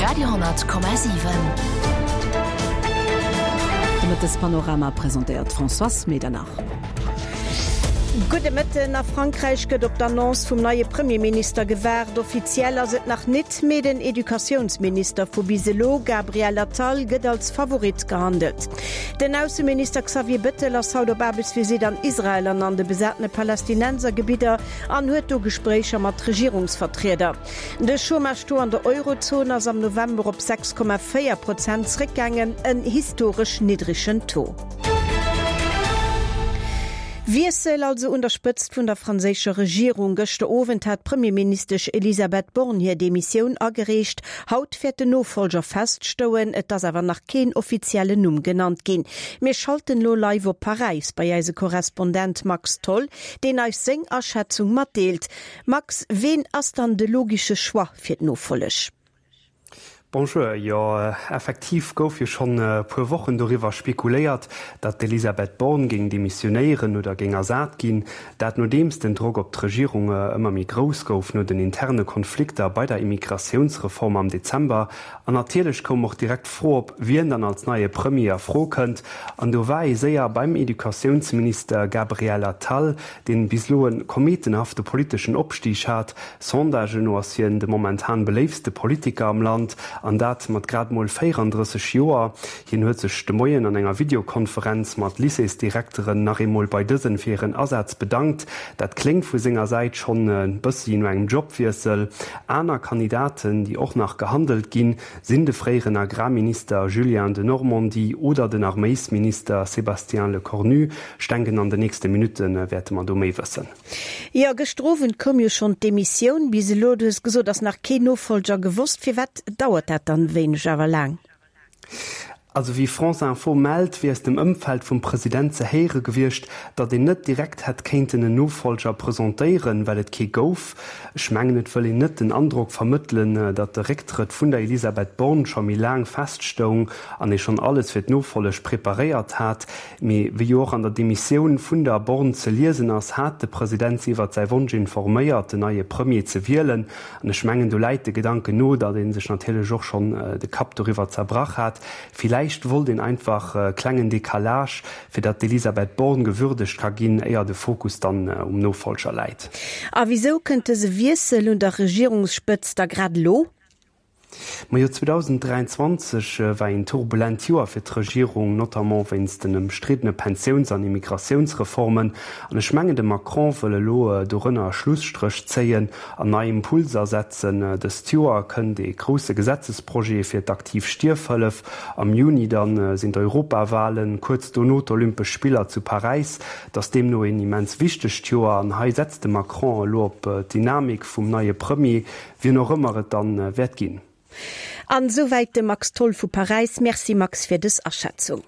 Radio,7. De Mëttespanorama presentéiert d'Françoise Medernach. Gudde Mëtten. A Frankräich gëtt op d'Annonce vum neie Premierminister gewaart. Offiziell ass et nach nit, mee den Educatiounsminister vu bis elo, Gabriel Attal, gëtt als Favorit gehandelt. Den Ausseminister Xavier Bettel ass haut op Aarbechtsvisitt an Israel an an de besatene Palästinensergebidder an huet do Gespréicher mat Regierungsvertrieder. De Chômage-Taux an der Eurozon ass am November op 6,4 Prozent zréckgaangen, en historesch niddregen Taux. Wiessel also un der Spëtzt vun der franséischer Regierung. Gëschter Owend hat d'Premierministesch Elisabeth Borne hir Demissioun agereecht. Haut wäert den Nofollger feststouen, et ass awer nach keen offiziellen Numm genannt ginn. Mir schalten elo live op Paräis bei eise Korrespondent Max Tholl, deen eis seng Aschätzung matdeelt. Max, ween ass dann de logische Choix fir d'Nofolleg? Bonjour, jo effektiv gouf jo schonn e puer Wochen doriwwer spekuléiert, datt d'Elisabeth Borne géing demissionéieren oder géing ersat ginn. Dat nodeems den Drock op d'Regierung ëmmer méi grouss gouf no den interne Konflikter bei der Immigratiounsreform am Dezember. An natierlech koum och direkt d'Fro op, wien dann als neie Premier a Fro kënnt. An do war ee séier beim Educatiounsminister Gabriel Attal, deen bis elo e kometenhafte politeschen Opstig hat. Sondagen no ass hien de momentan beléiftste Politiker am Land, an dat mat grad mol 34 Joer. Hien huet sech de Moien an enger Videokonferenz mat Lycéesdirekteren nach eemol bei dësen fir hiren Asaz bedankt. Dat kléngt vu senger Säit schonn e bëssi no engem Jobwiessel. Aner Kandidaten, déi och nach gehandelt ginn, sinn de fréieren Agrarminister Julien Denormandie oder den Arméisminister Sébastien Lecornu. Ech denken an de nächste Minutte wäerte mer do méi wëssen. Jo, gëschter Owend koum jo schonn d'Demissioun. Bis elo, du hues gesot, ass nach keen Nofollger gewosst. Firwat dauert dat dann wéineg awer laang? Also wéi France Info mellt, wier aus dem Ëmfeld vum President ze héiere gewiescht, datt een net direkt hätt kéinten en Nofollger presentéieren, well et kee gouf. Ech mengen, et wëll een net den Androck vermëttelen, datt de Récktrëtt vun der Elisabeth Borne scho méi laang feststoung an ee schonn alles fir d'Nofolleg preparéiert hat. Mee wéi jo och an der Demissioun vun der Borne ze liesen ass, hat de President si iwwert säi Wonsch informéiert, den neie Premier ze wielen. An ech mengen, do läit de Gedanken no, datt ee sech natierlech och schonn de Kapp doriwwer zerbrach hat. Villäicht wollt een einfach e klengen Decalage, fir datt d'Elisabeth Borne gewürdegt ka ginn, éier de Fokus dann um Nofollger läit. A wisou kënnt dëse Wiessel un der Regierungsspëtzt da grad elo? Majo, 2023 war een turbulent Joer fir d'Regierung, notamment wéinst den ëmstriddene Pensiouns an Immigratiounsreformen. An ech mengen, de Macron wëll elo dorënner e Schlusstréch zéien an nei Impulser setzen. Dëst Joer kënnt ee grousse Gesetzesprojet fir d'aktiv Stierfhëllef, am Juni dann sinn d'Europawalen, kuerz dono d'Olympesch Spiller zu Paräis. Et ass deemno een immens wichtegt Joer an hei setzt de Macron elo op d'Dynamik vum neie Premier, Wien och ëmmer et dann wäert ginn. An esouwäit de Max Tholl vu Paräis. Merci Max fir dës Aschätzung.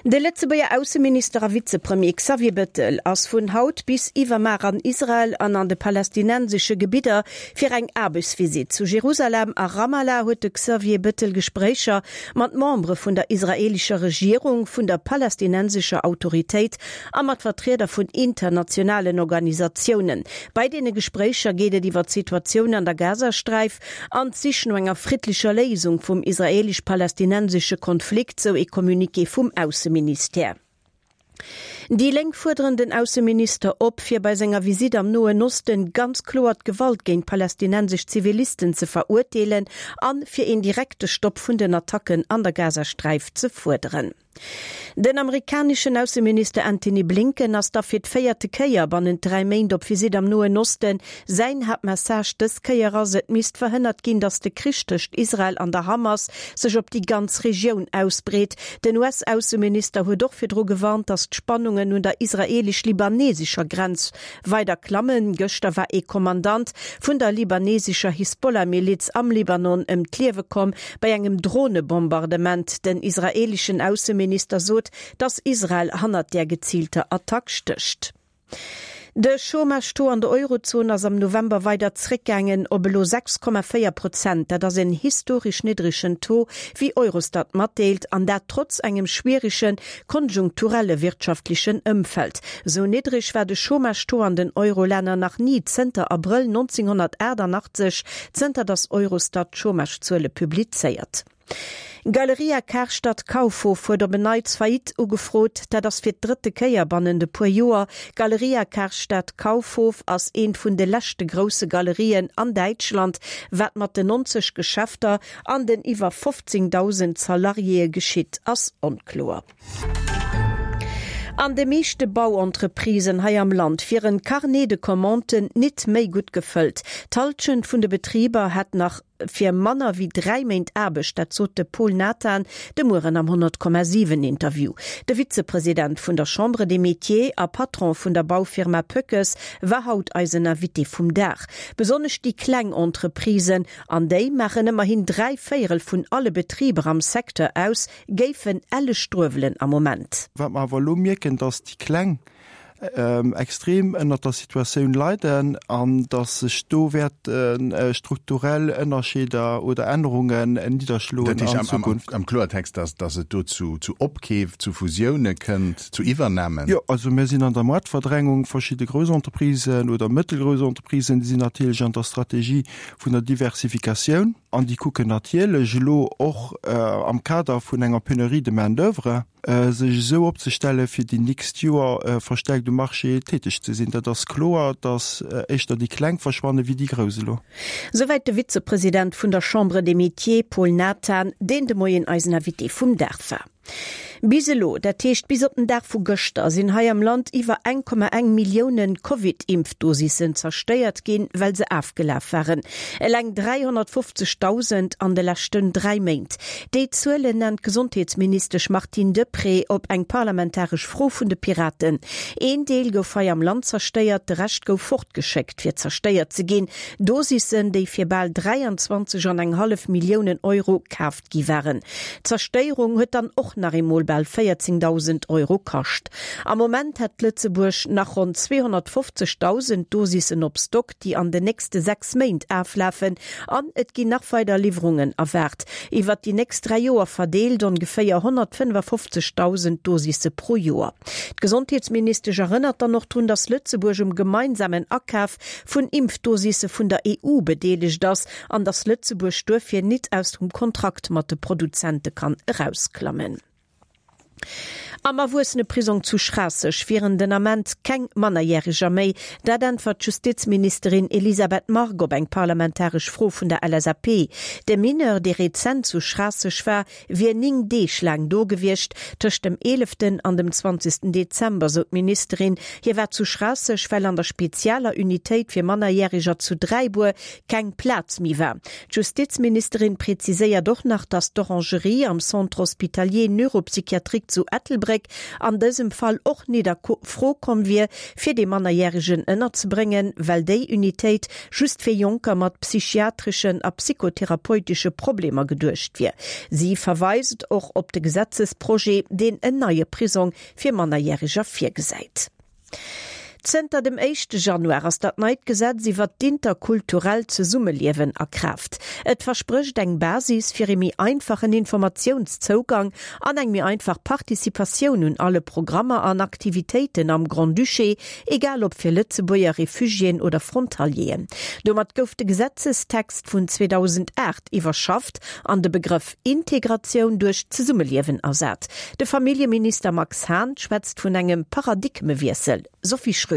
De Lëtzebuerger Ausseminister a Vizepremier Xavier Bettel ass vun haut bis iwwermar an Israel an an de palästinensesche Gebidder fir eng Aarbechtsvisitt. Zu Jerusalem a Ramallah huet de Xavier Bettel Gespréicher mat Membere vun der israeelescher Regierung, vun der palästinensescher Autoritéit a mat Vertrieder vun internationalen Organisatiounen. Bei deene Gespréicher geet et iwwer d'Situatioun an der Gazasträif an d'Sich no enger friddlecher Léisung vum israeelesch-palästinensesche Konflikt, sou ee Communiqué vum Ausseministère. Déi Lénk fuerderen den Ausseminister op, fir bei senger Visitt am Noen Osten ganz kloer d'Gewalt géint palästinensesch Zivilisten ze verurteelen an fir een direkte Stopp vun den Attacken an der Gazasträif ze fuerderen. Den amerikaneschen Ausseminister Antony Blinken ass da fir d'véierte Kéier bannent 3 Méint op Visitt am Noen Osten. Säin Haaptmessage dës Kéier ass, et misst verhënnert ginn, datt de Krich tëscht Israel an der Hamas sech op déi ganz Regioun ausbreet. Den US-Ausseminister huet och virdru gewarnt, datt d'Spannungen un der israeelesch-libanesescher Grenz weider klammen. Gëschter war ee Kommandant vun der libanesescher Hisbollah-Miliz am Libanon ëm d'Liewe komm bei engem Dronebombardement. Den israeeleschen Ausseminister sot, datt Israel hannert där geziilter Attack stécht. De Chômage-Taux an der Eurozon ass am November weider zréckgaangen op elo 6,4 Prozent. Dat ass en historesch niddregen Taux, wéi Eurostat matdeelt, an dat trotz engem schwierege konjunkturelle wirtschaftlechen Ëmfeld. Esou niddreg war de Chômage-Taux an den Eurolänner nach ni zënter Abrëll 1988, zënter datt Eurostat d'Chômage-Zuele publizéiert. Galeria Karstadt Kaufhof huet op en Neits Faillite ugefrot. Dat ass fir d'drëtte Kéier bannent e puer Joer. Galeria Karstadt Kaufhof ass eent vun de leschte grousse Galerien an Däitschland. Wat mat den 90 Geschäfter an den iwwer 15.000 Salariéë geschitt, ass onkloer. An de meeschte Bauentreprisen hei am Land wieren d'Carnets de commanden nit méi gutt gefëllt. D'Hallschent vun de Betriber hätt nach fir manner wéi 3 Méint Aarbecht, dat sot de Paul Nathan de Mueren am 100,7 Interview. De Vizepresident vun der Chambre des Métiers a Patron vun der Baufirma Pöckes war haut eisen Invité vum Dag. Besonnesch déi kleng Entreprisen, an déi maachen ëmmerhin 3 Véierel vun alle Betriber am Secteur aus, Géifen elle struewelen am Moment. Wat mer awer elo mierken, dass déi Kleng extrem ënnert der Situatioun leiden an dass sech do wäerte strukturell Ënnerscheeder oder Ännerungen nidderschloen an Zukunft. Dat heescht am Kloertext, dass dass et do zu Opkeef, zu Fusioune kënnt, zu Iwwernamen? Jo, also mir sinn an der Moartverdrängung. Verschidde grouss Entreprisen oder mëttelgrouss Entreprisen, déi sinn natierlech an der Strategie vun der Diversifikatioun. An déi kucken natierlech elo och am Kader vun enger Pénurie de main d'oeuvre, sech esou opzestellen, fir déi nächst Joer verstärkt um Marché täteg ze sinn. Dat ass kloer, datt éischter déi Kleng verschwanne wéi déi Grouss elo. Souwäit de Vizepresident vun der Chambre des Métiers, Paul Nathan, deen de Moien eisen Invité vum Dag war. Bis elo, dat heescht bis op den Dag vu gëschter, sinn hei am Land iwwer 1,1 Milliounen Covid-Impfdosissen zerstéiert ginn, well se afgelaf waren. Eleng 350.000 an de leschten 3 Méint. Déi Zuelen nennt d'Gesondheetsministesch Martine Deprez op eng parlamentaresch Fro vun de Piraten. Een Deel gouf hei am Land zerstéiert, de Rescht gouf fortgeschéckt, fir zerstéiert ze ginn. Dosissen, déi fir bal 23 an eng hallef Milliounen Euro kaaft gi waren. D'Zerstéierung huet dann och nach eemol bal 14.000 Euro kascht. Am Moment hätt Lëtzebuerg nach ronn 250.000 Dosissen op Stock, déi an den nächste 6 Méint aflafen an et ginn nach weider Liwwerungen erwaart. Iwwert déi nächst 3 Joer verdeelt ongeféier 155.000 Dosisse pro Joer. D'Gesondheetsministesch erënnert dann och drun, datt Lëtzebuerg um gemeinsamen Akaf vun Impfdosisse vun der EU bedeelegt ass an datt Lëtzebuerg duerfir nit aus dem Kontrakt mat de Produzente kann erausklammen. Am Erwuesseneprisong zu Schraasseg wieren den Ament keng Mannerjäreger méi. Dat äntwert d'Justizministerin Elisabeth Margue op eng parlamentaresch Fro vun der LSAP. De Mineur, dee rezent zu Schraasseg war, wier 9 Deeg laang do gewiescht, tëscht dem eeleften an dem zwanzegsten Dezember, sou d'Ministerin. Hie war zu Schraasseg, well an der spezialer Unitéit fir Mannerjäreger zu Dräibuer keng Plaz méi war. D'Justizministerin präziséiert och nach, datt d'Orangerie am Centre hospitalier neuropsychiatrique zu Ettelbréck an dësem Fall och nit a Fro komm wier, fir dee Mannerjäregen ënnerzebréngen, well déi Unitéit just fir Jonker mat psychiatreschen a psychotherapeutesche Problemer geduecht wier. Si verweist och op de Gesetzesprojet, deen en neie Prisong fir Mannerjäreger virgesäit. Zënter dem éischte Januar ass dat neit Gesetz iwwert d'interkulturellt Zesummeliewen a Kraaft. Et versprécht eng Basis fir ee méi einfachen Informatiounszougang an eng méi einfach Participatioun un alle Programmer an Aktivitéiten am Grand-Duché, egal ob fir Lëtzebuerger, Refugiéen oder Frontalieren. Domat gouf de Gesetzestext vun 2008 iwwerschafft an de Begrëff Integratioun duerch Zesummeliewen ersat. De Familljeminister Max Hahn schwätzt vun engem Paradigmewiessel. Sophie Schröder.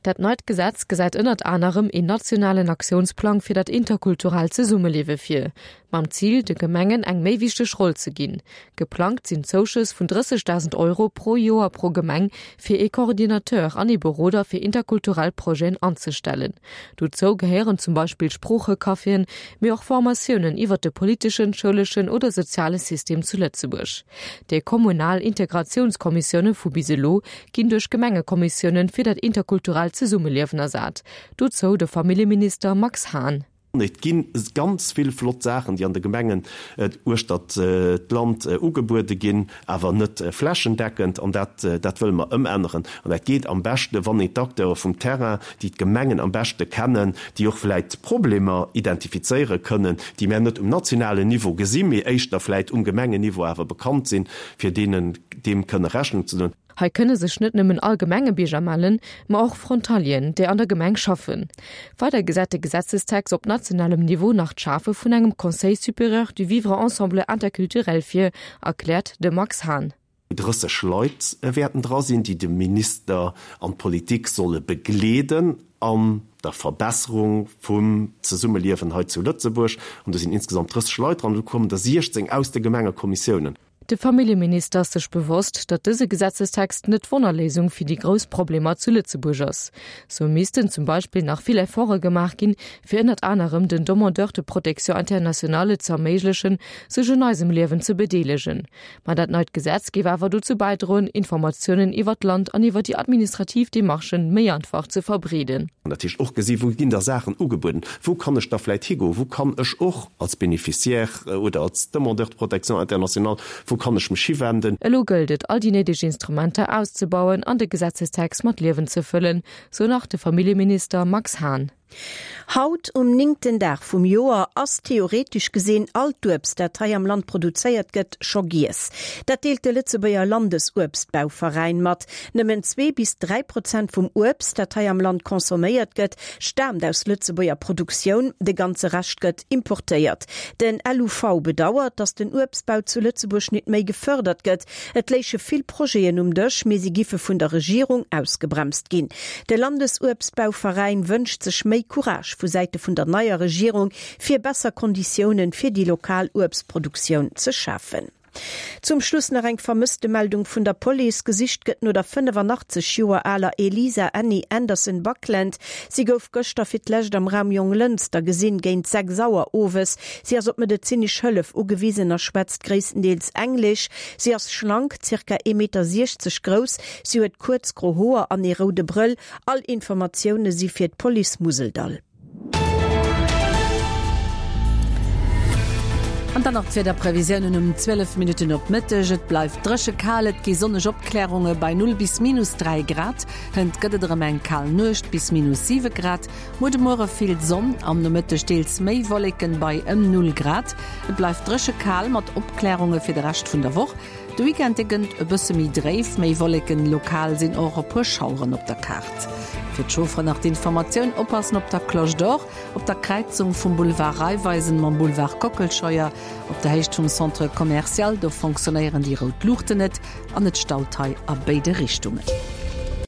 Dat neit Gesetz gesäit ënnert anerem een nationalen Aktiounsplang fir dat interkulturellt Zesummeliewe vir, mam Zil, de Gemengen eng méi wichteg Roll ze ginn. Geplangt sinn Zouschëss vun 30.000 Euro pro Joer pro Gemeng fir ee Coordinateur an ee Beroder fir interkulturell Projeten anzestellen. Dozou gehéieren zum Beispill Sproochecaféen, mee och Formatiounen iwwer de politeschen, schouleschen oder soziale System zu Lëtzebuerg. Déi kommunal Integratiounskommissioune vu bis elo ginn duerch Gemengekommissiounen fir dat interkulturellt Zesummeliewen ersat. Dozou de Familljeminister Max Hahn. Et gi ganz vill flott Saachen, déi an de Gemengen uechtert d'Land ugebuede ginn, awer net flächendeckend. An dat, dat wëlle mer ëmänneren. An dat geet am beschte, wann een d'Acteure vum Terrain, déi d'Gemengen am beschte kennen, déi och vläicht Problemer identifizéiere kënnen, déi mär net um nationalen Niveau gesinn, mee éischter vläicht um Gemengenniveau awer bekannt sinn, fir deenen deem kënne Rechnung ze doen. Hei kënne sech net nëmmen all Gemengebierger mellen, ma och Frontalieren, déi an der Gemeng schaffen. Weider gesäit de Gesetzestext op nationalem Niveau nach d'Schafe vun engem Conseil supérieur du vivre ensemble interculturel vir, erkläert de Max Hahn. 30 Leit wäerten dra sinn, déi de Minister an d'Politik solle begleeden an der Verbesserung vum Zesummeliewen hei zu Lëtzebuerg. An do sinn insgesamt 30 Leit dran. Do kommen der 16 aus de Gemengekommissiounen. De Familljeminister ass sech bewosst, datt dëse Gesetzestext net d'Wonnerléisung fir déi grouss Problemer zu Lëtzebuerg ass. Sou missten zum Beispill nach vill Efforte gemaach ginn, fir ënnert anerem den Demandeurs de protection internationale ze erméiglechen, sech un eisem Liewen ze bedeelegen. Ma dat neit Gesetz géif awer dozou bäidroen, Informatiounen iwwer d'Land an iwwer déi administrativ Demarchen méi einfach ze verbreeden. An dat heescht och gesi wou ginn da Saachen ugebueden, wou kann ech da vläit higoen, wou kann ech och als Bénéficiaire oder als Demandeur de protection internationale, wou kann ech mech hiwenden. Elo gëllt et, all déi néideg Instrumenter auszebauen an de Gesetzestext mat Liewen ze fëllen, sou nach de Familljeminister Max Hahn. Haut, um néngten Dag vum Joer, ass theoretesch gesinn all d'Uebst, dat hei am Land produzéiert gëtt, scho giess. Dat deelt de Lëtzebuerger Landesuebstbauveräin mat. Nëmmen 2 bis 3 Prozent vum Uebst, dat hei am Land consomméiert gëtt, staamt aus Lëtzebuerger Produktioun, de ganze Rescht gëtt importéiert. Den LUV bedauert, datt den Uebstbau zu Lëtzebuerg nit méi gefërdert gëtt. Et léiche vill Projeten um Dësch, mee si giffe vun der Regierung ausgebremst ginn. De Landesuebstbauveräin wënscht sech méi Courage vu Säite vun der neier Regierung, fir besser Konditiounen fir déi lokal Uebstproduktioun ze schafen. Zum Schluss nach eng Vermësstemeldung vun der Police. Gesicht gëtt no der 85 Joer aler Elisa Annie Anderson Buckland. Si gouf gëschter fir d'lescht am Raum Jonglënster gesinn, géint 6 Auer owes. Si ass op medezinesch Hëllef ugewisen a schwätzt gréisstendeels Englesch. Si ass schlank, zirka ee Meter 60 grouss. Si huet kuerz gro Hoer an ee roude Brëll. All Informatioune si fir d'Police Museldall. An dann nach d'Wiederprevisiounen um 12 Minutten op Mëtteg, Et bleift dréche kal, et gi sonneg Opklärunge bei 0 bis minus 3 Grad. Hënt gëtt et erëm eng kal Nuecht bis minus 7 Grad. Muer de Muere vill Sonn, am Nomëtteg deels méi Wolleken bei ëm 0 Grad. Et bleift dréche kal mat Opklärunge fir de Rescht vun der Woch. De Weekend dee gënnt e bësse méi dréif, méi Wolleken, lokal sinn och e puer Schaueren op der Kaart. Fir d'Chaufferen nach d'Informatioun, Oppassen op der Cloche d'Or, op der Kräizung vum Boulevard Raiffeisen mam Boulevard Kockelscheuer, op der Héicht vum Centre Commercial, do fonctionnéieren déi rout Luuchten net an et staut hei a béide Richtungen.